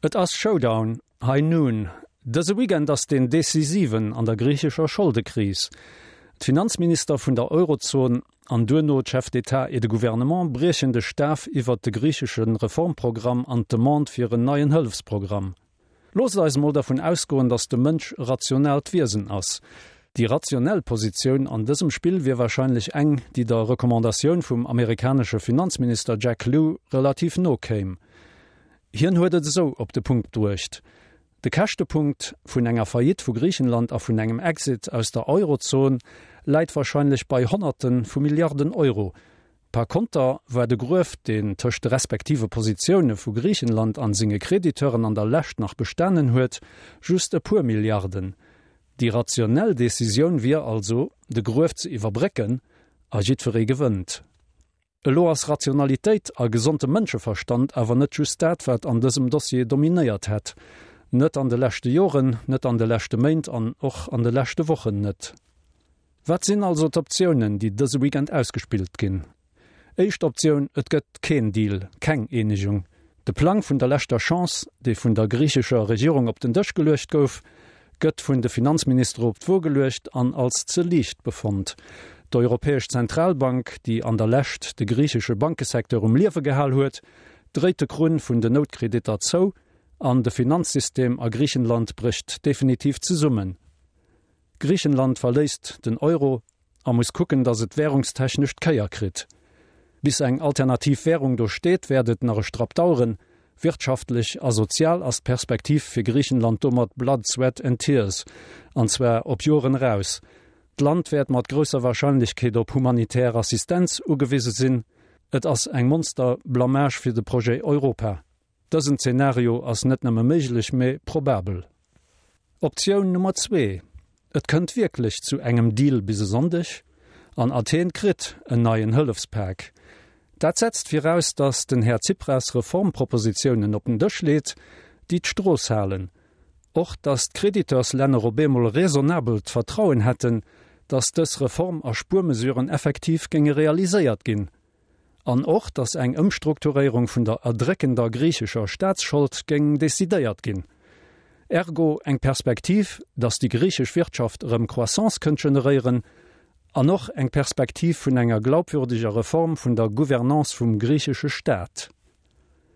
Et ass Showdown, High Noon. Dëse Weekend ass deen decisiven an der griichescher Scholdekris. D'Finanzminister vun der Eurozon an duerno d'Chefs d'État et de Gouvernement briechen de Staf iwwert de griichesche Reformprogramm an d'Demande fir en neien Hëllefsprogramm. Loosst eis emol dervun ausgoen, datt de Mënsch e rationaalt Wiesen ass. Déi rationell Positioun an dësem Spill wier warscheinlech eng, déi der Recommandatioun vum amerikanesche Finanzminister Jack Lew relativ no kéim. Hien huet et esou op de Punkt bruecht, De Käschtepunkt vun enger Faillite vu Griichenland a vun engem Exit aus der Eurozon läit warscheinlech bei Honnerte vu Milliarden Euro. Par konter war de Gruef, deen tëscht de respektive Positioune vu Griichenland an senge Crediteuren an der Lescht nach bestanen huet, just e puer Milliarden. Déi rationell Decisioun wier also, de Gruef ze iwwerbrécken, a jiddweree gewënnt. Elo ass Rationalitéit a gesonde Mënscheverstand awer net just dat, wat an dësem Dossier dominéiert hätt. Net an de leschte Joren, net an de leschte Méint an och an de leschte Wochen net. Wat sinn also d'Optiounen, déi dëse Weekend ausgespillt ginn? Éischt Optioun, Et gëtt keen Deal, keng Eenegung. De Plang vun der leschter Chance, dee vun der griichescher Regierung op den Dësch geluecht gouf, gëtt vun de Finanzministere op d'Wo geluecht an als ze liicht befonnt. D'Europäesch Zentralbank, déi an der Lescht de griichesche Bankesecteur um Liewe gehal huet, dréit de Krunn vun den Noutkreditter zou an de Finanzsystem a Griichenland brécht definitiv zesummen. Griichenland verléisst den Euro a muss kucken, datt et währungstechnesch d'Kéier kritt. Bis eng alternativ Währung do steet, wäert et nach e Strapp daueren. Wirtschaftlech a sozial ass d'Perspektiv fir Griichenland domat blood, sweat and tears, an zwar op Joren eraus. D'Land wäert mat grousser Warscheinlechkeet op humanitär Assistenz ugewise sinn. Et ass eng Monster-Blamage fir de Projet Europa. Dësen Zenario ass net nëmme méiglech, mee probabel. Optioun Nummer zwee, Et kënnt wierklech zu engem Deal bis e Sonndeg an Athen kritt en neien Hëllefspak. Dat setzt viraus, datt den Här Tsipras Reformpropositiounen op den Dësch leet, déi d'Strooss halen. Och datt d'Créditeurslänner op eemol raisonnabelt Vertrauen hätten, datt dës Reform a Spuermesuren effektiv géinge realiséiert ginn. An och, datt eng Ëmstrukturéierung vun der erdréckender griichescher Staatsschold géing decidéiert ginn. Ergo eng Perspektiv, datt déi griichesch Wirtschaft erëm Croissance kënnt generéieren, an och eng Perspektiv vun enger glaubwürdeger Reform vun der Gouvernance vum griichesche Staat.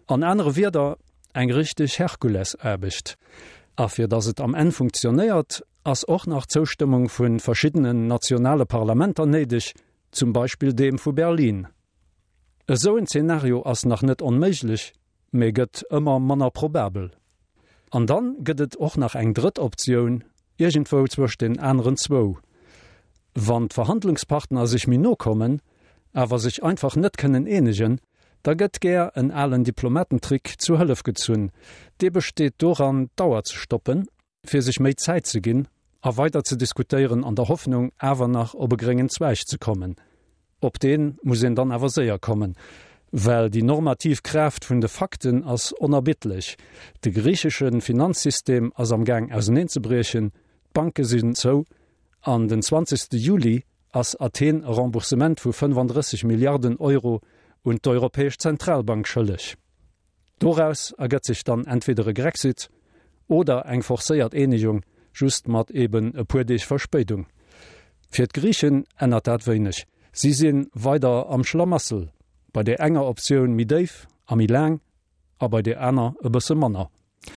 An anere Wierder, eng richteg Herkulesaarbecht. A fir datt et am Enn funktionéiert, ass och nach d'Zoustëmmung vu verschiddenen nationale Parlamenter néideg, zum Beispill deem vu Berlin. Esou en Zeenario ass nach net onméiglech, mee gëtt ëmmer manner probabel. An dann gëtt et och nach eng drëtt Optioun, iergendwou zwëscht den aneren zwou. Wann d'Verhandlungspartner sech méi no kommen, awer sech einfach net kënnen eenegen, da gëtt gär en alen Diplomatentrick zu Hëllef gezunn. Dee besteet doran, d'Auer ze stoppen, fir sech méi Zäit ze ginn a weider ze diskutéieren an der Hoffnung awer nach op e gréngen Zweig ze kommen. Op dee muss een dann awer séier kommen, well déi normativ Kraaft vun de Fakten ass onerbittlech. De griichesche Finanzsystem ass am Gaang auserneenzebriechen, d'Banke sinn zou an den 20. Juli ass Athen e Remboursement vu 35 Milliarden Euro un d'Europäesch Zentralbank schëlleg. Doraus ergëtt sech dann entweder e Grexit oder eng forcéiert Eenegung, just mat eben e puer Deeg Verspéidung. Fir d'Griichen ännert dat wéineg, si si weider am Schlamassel, bei där enger Optioun méi déif a méi laang a bei där aner e bësse manner.